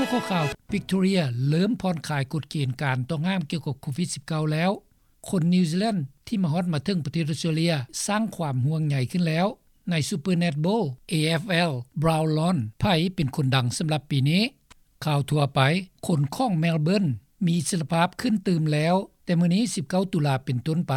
ຂໍ້ຂ່າວ ວິກຕໍເຣຍເລີ່ມຜ່ອນຄາຍກົດເກນການຕ້ອງຫ້າມກ່ຽວກັບໂຄວິດ-19 ແລ້ວ. ຄົນນິວຊີແລນທີ່ມາຮອດມາເຖິງປະເທດອອສເຕຣເລັຍສ້າງຄວາມຫ່ວງໃຍຂຶ້ນແລ້ວ. ໃນ Super Netball AFL Brown Lawn ໃຜເປັນຄົນດັງສຳລັບປີນີ້? ຂ່າວທົ່ວໄປ, ຄົນຂອງ Melbourne ມີອິດສະລະພາບຂຶ້ນຕື່ມແລ້ວ, ແຕ່ມື້ນີ້ ສິບເກົ້າ ຕຸລາເປັນຕົ້ນໄປ,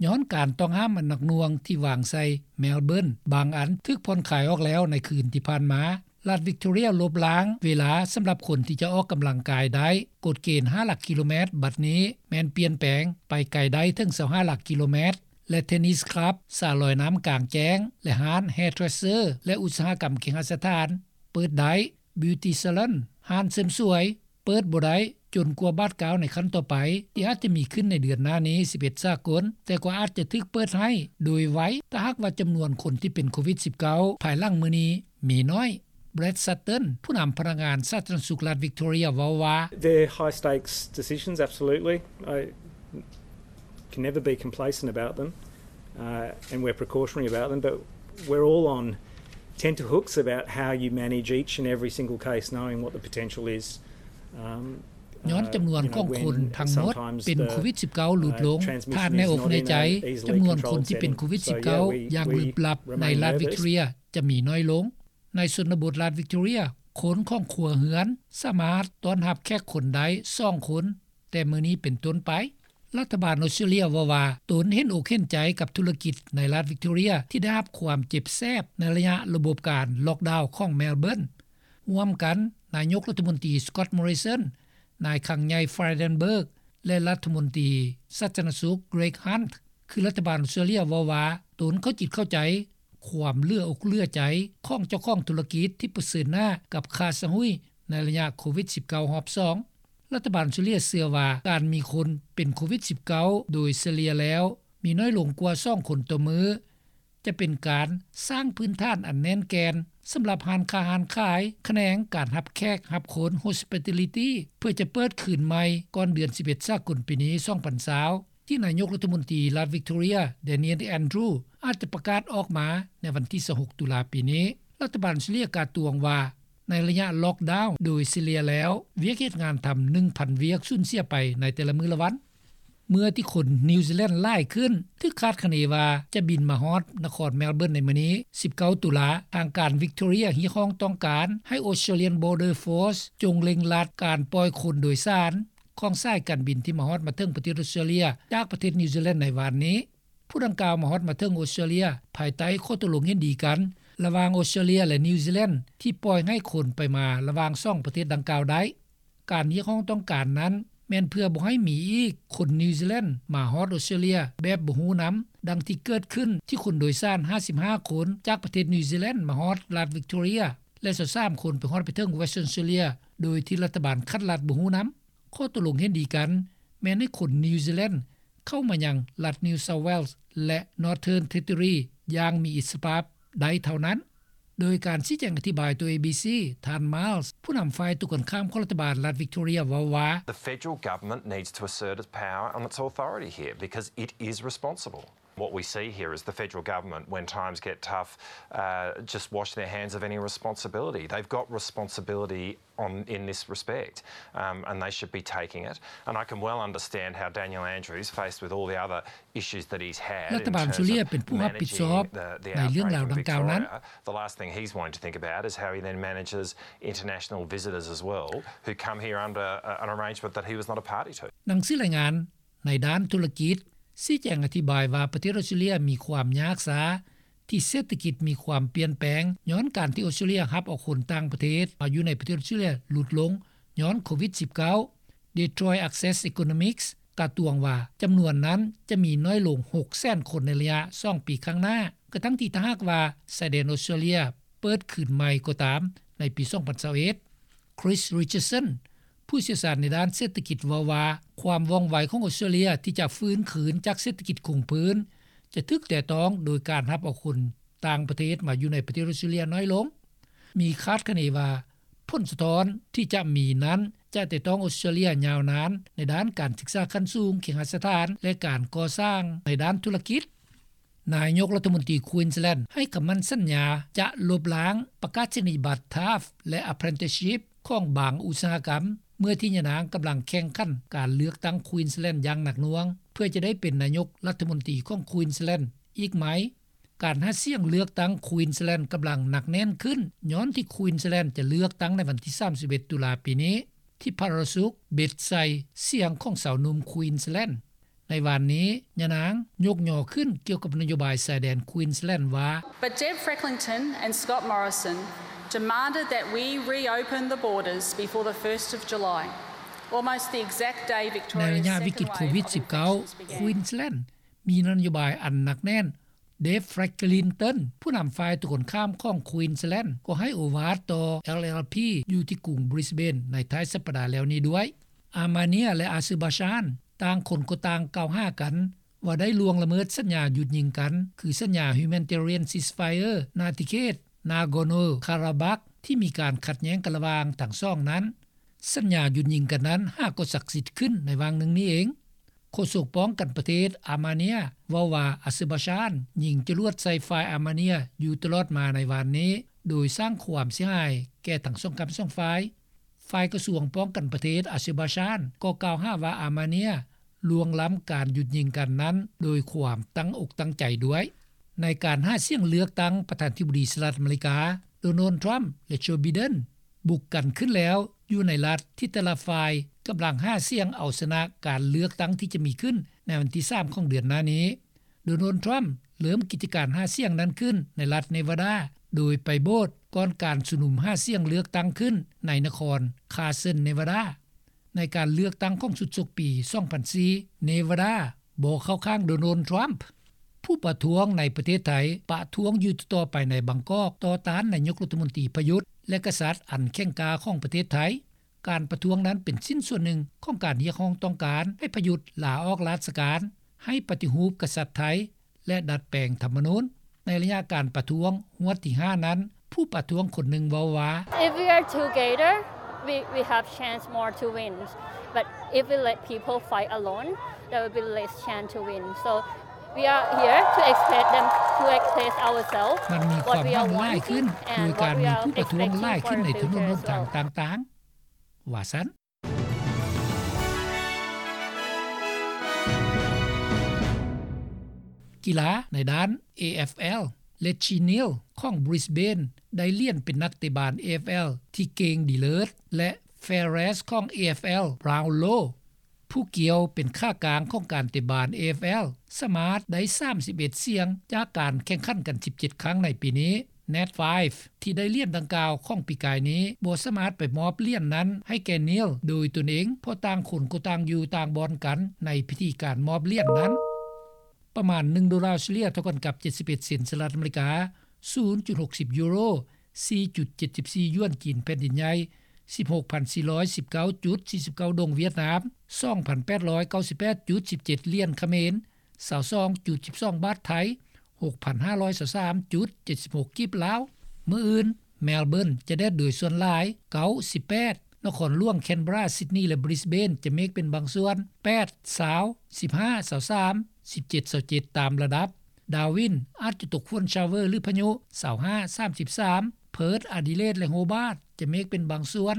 ຍ້ອນການຕ້ອງຫ້າມອັນໜັກໜ່ວງທີ່ວາງໃສ່ Melbourne ບາງອັນຖືກຜ່ອນຄາຍອອກແລ້ວໃນຄືນທີ່ຜ່ານມາ. ລັດ Victoria ລົບລ້າງເວລາສຳລັບຄົນທີ່ຈະອອກກຳລັງກາຍໄດ້. ກົດເກນ ຫ້າ ຫຼັກກິໂລແມັດ ບັດນີ້ແມ່ນປ່ຽນແປງໄປໄກໄດ້ເຖິງ ຊາວຫ້າ ຫຼັກກິໂລແມັດ ແລະ Tennis Club, ສະລອຍນ້ຳກາງແຈ້ງ ແລະ ຮ້ານ Hairdresser ແລະ ອຸດສາຫະກຳເຄຫະສະຖານ ເປີດໄດ້. Beauty Salon, ຮ້ານເສີມສວຍ ເປີດບໍ່ໄດ້ຈົນກວ່າບາດກ້າວໃນຂັ້ນຕໍ່ໄປ ທີ່ອາດຈະມີຂຶ້ນໃນເດືອນໜ້ານີ້ ສິບເອັດ ສາກົນ, ແຕ່ກໍອາດຈະຖືກເປີດໃຫ້ໂດຍໄວ ຖ້າຫາກວ່າຈຳນວນຄົນທີ່ເປັນໂຄວິດ-19 ພາຍຫຼັງມື້ນີ້ມີໜ້ອຍ. Brad Sutton, ຜູ້ນຳພະນັກງານສາທາລະນະສຸກລັດ Victoria ເວົ້າວ່າ: They're high stakes decisions, absolutely. I can never be complacent about them, uh, and we're precautionary about them, but we're all on tenterhooks about how you manage each and every single case, knowing what the potential is. Um, ຍ້ອນຈຳນວນຂອງຄົນທັງໝົດເປັນໂຄວິດ-19 ຫຼຸດລົງ, ຖ້າໃນອົກໃນໃຈ ຈຳນວນຄົນທີ່ເປັນໂຄວິດ-19 ຢ່າງລຶບລັບໃນລັດ Victoria ຈະມີໜ້ອຍລົງ. ໃນຊົນນະບົດລັດ Victoria, ຄົນຂອງຄົວເຮືອນສາມາດຕ້ອນຮັບແຂກຄົນໄດ້ສອງຄົນ ແຕ່ມື້ນີ້ເປັນຕົ້ນໄປ. ລັດຖະບານອອສເຕຣເລັຍເວົ້າວ່າ ຕົນເຫັນອົກເຫັນໃຈກັບທຸລະກິດໃນລັດ Victoria ທີ່ໄດ້ຮັບຄວາມເຈັບແສບໃນໄລຍະລະບົບການລັອກດາວຂອງ Melbourne. ຮ່ວມກັນ, ນາຍົກລັດຖະມົນຕີ Scott Morrison, ນາຍຄັງໃຫຍ່ Frydenberg ແລະ ລັດຖະມົນຕີສາທາລະນະສຸກ Greg Hunt ຄືລັດຖະບານອອສເຕຣເລັຍເວົ້າວ່າ ຕົນເຂົ້າຈິດເຂົ້າໃຈຄວາມເຫຼືອອົກເຫຼືອໃຈຂອງເຈົ້າຂອງທຸລະກິດທີ່ປະເຊີນໜ້າກັບຄ່າສະຫຸຍໃນໄລຍະໂຄວິດ-19 ຮອບສອງ. ລັດຖະບານອອສເຕຣເລັຍເຊື່ອວ່າ ການມີຄົນເປັນໂຄວິດ-19 ໂດຍສະເລ່ຍແລ້ວມີນ້ອຍລົງກວ່າສອງຄົນຕໍ່ມື້ ຈະເປັນການສ້າງພື້ນຖານອັນແໜ້ນແກ່ນສຳລັບຮ້ານຄ້າຮ້ານຂາຍ, ຂະແໜງການຮັບແຂກຮັບຄົນ Hospitality ເພື່ອຈະເປີດຄືນໃໝ່ກ່ອນເດືອນສິບເອັດ ສາກົນ ປີນີ້ ສອງພັນຊາວ ທີ່ນາຍົກລັດຖະມົນຕີລັດ Victoria Daniel Andrews ອາດຈະປະກາດອອກມາໃນວັນທີ ຊາວຫົກ ຕຸລາ ປີນີ້. ລັດຖະບານອອສເຕຣເລັຍກ່າວຕວງວ່າ ໃນໄລຍະລັອກດາວໂດຍສະເລ່ຍແລ້ວ ວຽກເຮັດງານທຳ ໜຶ່ງພັນ ວຽກສູນເສຍໄປໃນແຕ່ລະມື້ລະວັນ. ເມື່ອທີ່ຄົນນິວຊີແລນຫຼາຍຂຶ້ນ ຖືກຄາດຄະເນວ່າຈະບິນມາຮອດນະຄອນ Melbourne ໃນມື້ນີ້ ສິບເກົ້າ ຕຸລາ, ທາງການ Victoria ຮຽກຮ້ອງຕ້ອງການໃຫ້ Australian Border Force ຈົ່ງເລັ່ງລັດການປ່ອຍຄົນໂດຍສານຂອງສາຍການບິນທີ່ມາຮອດມາເຖິງປະເທດອອສເຕຣເລັຍ ຈາກປະເທດນິວຊີແລນໃນວານນີ້. ຜູ້ດັ່ງກ່າວມາຮອດມາເຖິງອອສເຕຣເລັຍ ພາຍໃຕ້ຂໍ້ຕົກລົງເຫັນດີກັນລະຫວ່າງອອສເຕຣເລັຍ ແລະ ນິວຊີແລນ ທີ່ປ່ອຍໃຫ້ຄົນໄປມາລະຫວ່າງສອງປະເທດດັ່ງກ່າວໄດ້. ການຮຽກຮ້ອງຕ້ອງການນັ້ນ ແມ່ນເພື່ອບໍ່ໃຫ້ມີອີກຄົນນິວຊີແລນມາຮອດອອສເຕຣເລັຍແບບບໍ່ຮູ້ນຳ, ດັ່ງທີ່ເກີດຂຶ້ນທີ່ຄົນໂດຍສານ ຫ້າສິບຫ້າ ຄົນ ຈາກປະເທດນິວຊີແລນມາຮອດລັດ Victoria ແລະ ຊາວສາມ ຄົນໄປຮອດໄປເຖິງ Western Australia ໂດຍທີ່ລັດຖະບານຂັດລັດບໍ່ຮູ້ນຳ. ຂໍ້ຕົກລົງເຫັນດີກັນ ແມ່ນໃຫ້ຄົນນິວຊີແລນ ເຂົ້າມາຍັງລັດ New South Wales ແລະ Northern Territory ຢ່າງມີອິດສະລະພາບໄດ້ເທົ່ານັ້ນ. ໂດຍການຊີ້ແຈງອະທິບາຍຕໍ່ ເອບີຊີ ທ່ານ Miles ຜູ້ນຳຝ່າຍຕົງກັນຂ້າມຂອງລັດຖະບານລັດ Victoria ເວົ້າວ່າ: The federal government needs to assert its power and its authority here because it is responsible. What we see here is the federal government, when times get tough, uh, just wash their hands of any responsibility. They've got responsibility on, in this respect, um, and they should be taking it. And I can well understand how Daniel Andrews, faced with all the other issues that he's had in terms of managing the, the outbreak in Victoria, the last thing he's wanting to think about is how he then manages international visitors as well, who come here under, uh, an arrangement that he was not a party to. ໜັງສືລາຍງານ ໃນດ້ານທຸລະກິດ ຊີ້ແຈງອະທິບາຍວ່າ ປະເທດອອສເຕຣເລັຍມີຄວາມຍາກຊ້າ ທີ່ເສດຖະກິດມີຄວາມປ່ຽນແປງ ຍ້ອນການທີ່ອອສເຕຣເລັຍຮັບເອົາຄົນຕ່າງປະເທດມາຢູ່ໃນປະເທດອອສເຕຣເລັຍຫຼຸດລົງ ຍ້ອນໂຄວິດ-19. Detroit Access Economics ກ່າວຕວງວ່າ ຈຳນວນນັ້ນຈະມີນ້ອຍລົງ ຫົກແສນ ຄົນໃນໄລຍະສອງປີຂ້າງໜ້າ ກະທັ່ງທີ່ຖ້າຫາກວ່າຊາຍແດນອອສເຕຣເລັຍເປີດຄືນໃໝ່ກໍຕາມໃນປີ ສອງພັນຊາວເອັດ. Chris Richardson ຜູ້ຊ່ຽວຊານໃນດ້ານເສດຖະກິດເວົ້າວ່າ ຄວາມວ່ອງໄວຂອງອອສເຕຣເລັຍທີ່ຈະຟື້ນຄືນຈາກເສດຖະກິດຄົງພື້ນ ຈະຖືກແຕະຕ້ອງໂດຍການຮັບເອົາຄົນຕ່າງປະເທດມາຢູ່ໃນປະເທດອອສເຕຣເລັຍນ້ອຍລົງ. ມີຄາດຄະເນວ່າ ຜົນສະທ້ອນທີ່ຈະມີນັ້ນ ຈະແຕະຕ້ອງອອສເຕຣເລັຍຍາວນານໃນດ້ານການສຶກສາຂັ້ນສູງ, ເຄຫະສະຖານ ແລະ ການກໍ່ສ້າງໃນດ້ານທຸລະກິດ. ນາຍົກລັດຖະມົນຕີ Queensland ໃຫ້ຄຳໝັ້ນສັນຍາຈະລົບລ້າງປະກາສະນີຍະບັດ TAFE ແລະ Apprenticeship ຂອງບາງອຸດສາຫະກຳ ເມື່ອທີ່ຍານາງກຳລັງແຂ່ງຂັນການເລືອກຕັ້ງ Queensland ຢ່າງໜັກໜ່ວງ ເພື່ອຈະໄດ້ເປັນນາຍົກລັດຖະມົນຕີຂອງ Queensland ອີກໃໝ່. ການຫາສຽງເລືອກຕັ້ງ Queensland ກຳລັງໜັກແໜ້ນຂຶ້ນ ຍ້ອນທີ່ Queensland ຈະເລືອກຕັ້ງໃນວັນທີສາມສິບເອັດ ຕຸລາປີນີ້ ທີ່ພະລາຊຸກເບັດໃສ່ສຽງຂອງຊາວໜຸ່ມ Queensland. ໃນວານນີ້ ຍານາງຍົກຍໍຂຶ້ນກ່ຽວກັບນະໂຍບາຍຊາຍແດນ Queensland ວ່າ But Deb Frecklington and Scott Morrison demanded that we reopen the borders before the first of July, almost the exact day Victoria's second wave of infections began. ໃນໄລຍະວິກິດໂຄວິດ-19 Queensland ມີນະໂຍບາຍອັນໜັກແໜ້ນ. Deb Frecklington ຜູ້ນຳຝ່າຍຕົງກັນຂ້າມຂອງ Queensland ກໍໃຫ້ໂອວາດຕໍ່ LLP ຢູ່ທີ່ກຸງ Brisbane ໃນທ້າຍສັບປະດາແລ້ວນີ້ດ້ວຍ. ອາມາເນຍ ແລະ ອາເຊີບາຊານ ຕ່າງຄົນກໍຕ່າງກ່າວຫາກັນວ່າໄດ້ລ່ວງລະເມີດສັນຍາຢຸດຍິງກັນ ຄືສັນຍາ Humanitarian Ceasefire ນາທິເຂດ Nagorno-Karabakh ທີ່ມີການຂັດແຍ້ງກັນລະຫວ່າງທັງສອງນັ້ນ. ສັນຍາຢຸດຍິງກັນນັ້ນຫາກໍສັກສິດຂຶ້ນໃນຫວ່າງໜຶ່ງນີ້ເອງ. ໂຄສົກປ້ອງກັນປະເທດອາມາເນຍເວົ້າວ່າ ອາເຊີບາຊານຍິງຈະຫຼວດໃສ່ຝ່າຍອາມາເນຍຢູ່ຕະຫຼອດມາໃນວານນີ້ ໂດຍສ້າງຄວາມເສຍຫາຍແກ່ທັງສອງຂ້າງສອງຝ່າຍ. ຝ່າຍກະຊວງປ້ອງກັນປະເທດອາເຊີບາຊານກໍກ່າວຫາວ່າອາມາເນຍລ່ວງລ້ຳການຢຸດຍິງກັນນັ້ນໂດຍຄວາມຕັ້ງອົກຕັ້ງໃຈດ້ວຍ. ໃນການຫາສຽງເລືອກຕັ້ງປະທານທິບໍດີສະຫະລັດອາເມລິກາ ໂດນັລ ທຣຳ ແລະ ໂຈ ໄບເດັນ ບຸກກັນຂຶ້ນແລ້ວ ຢູ່ໃນລັດທີ່ແຕ່ລະຝ່າຍກຳລັງຫາສຽງເອົາຊະນະການເລືອກຕັ້ງທີ່ຈະມີຂຶ້ນໃນວັນທີສາມຂອງເດືອນໜ້ານີ້. ໂດນັລ ທຣຳ ເລີ່ມກິດຈະການຫາສຽງນັ້ນຂຶ້ນໃນລັດເນວາດາ ໂດຍໄປໂບດກ່ອນການຊຸມນຸມຫາສຽງເລືອກຕັ້ງຂຶ້ນໃນນະຄອນ Carson Nevada. ໃນການເລືອກຕັ້ງຂອງຊຸດສົກປີສອງພັນສີ່ Nevada ບໍ່ເຂົ້າຂ້າງໂດນັລ ທຣຳ. ຜູ້ປະທ້ວງໃນປະເທດໄທປະທ້ວງຢູ່ຕໍ່ໆໄປໃນບາງກອກ ຕໍ່ຕ້ານນາຍົກລັດຖະມົນຕີປະຍຸດ ແລະ ກະສັດອັນແຂງກ້າຂອງປະເທດໄທ. ການປະທ້ວງນັ້ນເປັນຊິ້ນສ່ວນໜຶ່ງຂອງການຮຽກຮ້ອງຕ້ອງການໃຫ້ປະຍຸດລາອອກລາຊະການ, ໃຫ້ປະຕິຮູບກະສັດໄທ ແລະ ດັດແປງທຳມະນູນ. ໃນໄລຍະການປະທ້ວງຮວດທີຫ້ານັ້ນ, ຜູ້ປະທ້ວງຄົນໜຶ່ງເວົ້າວ່າ If we are together, we, we have chance more to win. But if we let people fight alone, there will be less chance to win. So we are here to express them, to express ourselves, ມັນມີຄວາມຫວັງຫຼາຍຂຶ້ນໂດຍການມີຜູ້ປະທ້ວງຫຼາຍຂຶ້ນໃນຖະໜົນຫົນທາງຕ່າງໆ ວ່າຊັ້ນ. ກິລາໃນດ້ານ AFL Reggie Neal ຂອງ Brisbane ໄດ້ຫຼຽນເປັນນັກເຕະບານ AFL ທີ່ເກັ່ງດີເລີດ ແລະ Fairest ຂອງ AFL Brownlow ຜູ້ກ່ຽວເປັນຂາກາງຂອງການເຕະບານ AFL ສາມາດໄດ້ສາມສິບເອັດສຽງຈາກການແຂ່ງຂັນກັນສິບເຈັດຄັ້ງໃນປີນີ້. Nat Fyfe ທີ່ໄດ້ຫຼຽນດັ່ງກ່າວຂອງປີກາຍນີ້ ບໍ່ສາມາດໄປມອບຫຼຽນນັ້ນໃຫ້ແກ່ Neal ໂດຍຕົນເອງ ເພາະຕ່າງຄົນກໍຕ່າງຢູ່ຕ່າງບ່ອນກັນໃນພິທີການມອບຫຼຽນນັ້ນ. ປະມານໜຶ່ງໂດລາເສຍເລີຍ ເທົ່າກັນກັບເຈັດສິບເອັດເຊັນສະຫະລັດອາເມລິກາ, ສູນຈຸດຫົກສິບຢູໂຣ, ສີ່ຈຸດເຈັດສິບສີ່ຢວນຈີນແຜ່ນດິນໃຫຍ່, ສິບຫົກພັນສີ່ຮ້ອຍສິບເກົ້າຈຸດສີ່ສິບເກົ້າດົງຫວຽດນາມ, ສອງພັນແປດຮ້ອຍເກົ້າສິບແປດຈຸດສິບເຈັດຫຼຽນຂະເໝນ, ຊາວສອງຈຸດສິບສອງບາດໄທ, ຫົກພັນຫ້າຮ້ອຍຊາວສາມຈຸດເຈັດສິບຫົກກີບລາວ. ມື້ອື່ນ Melbourne ຈະແດດໂດຍສ່ວນຫຼາຍ ເກົ້າສິບແປດ, ນະຄອນຫຼວງ Canberra, Sydney ແລະ Brisbane ຈະເມກເປັນບາງສ່ວນ ແປດ ຊາວ, ສິບຫ້າ ຊາວສາມ, ສິບເຈັດ ຊາວເຈັດ ຕາມລະດັບ. Darwin ອາດຈະຕົກຝົນ shower ຫຼື ພາຍຸ ຊາວຫ້າ ສາມສິບສາມ, Perth, Adelaide ແລະ Hobart ຈະເມກເປັນບາງສ່ວນ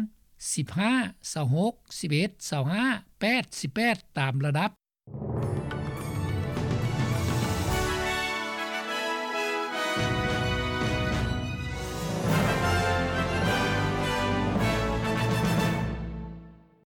ສິບຫ້າ ຊາວຫົກ, ສິບເອັດ ຊາວຫ້າ, ແປດ ສິບແປດ ຕາມລະດັບ.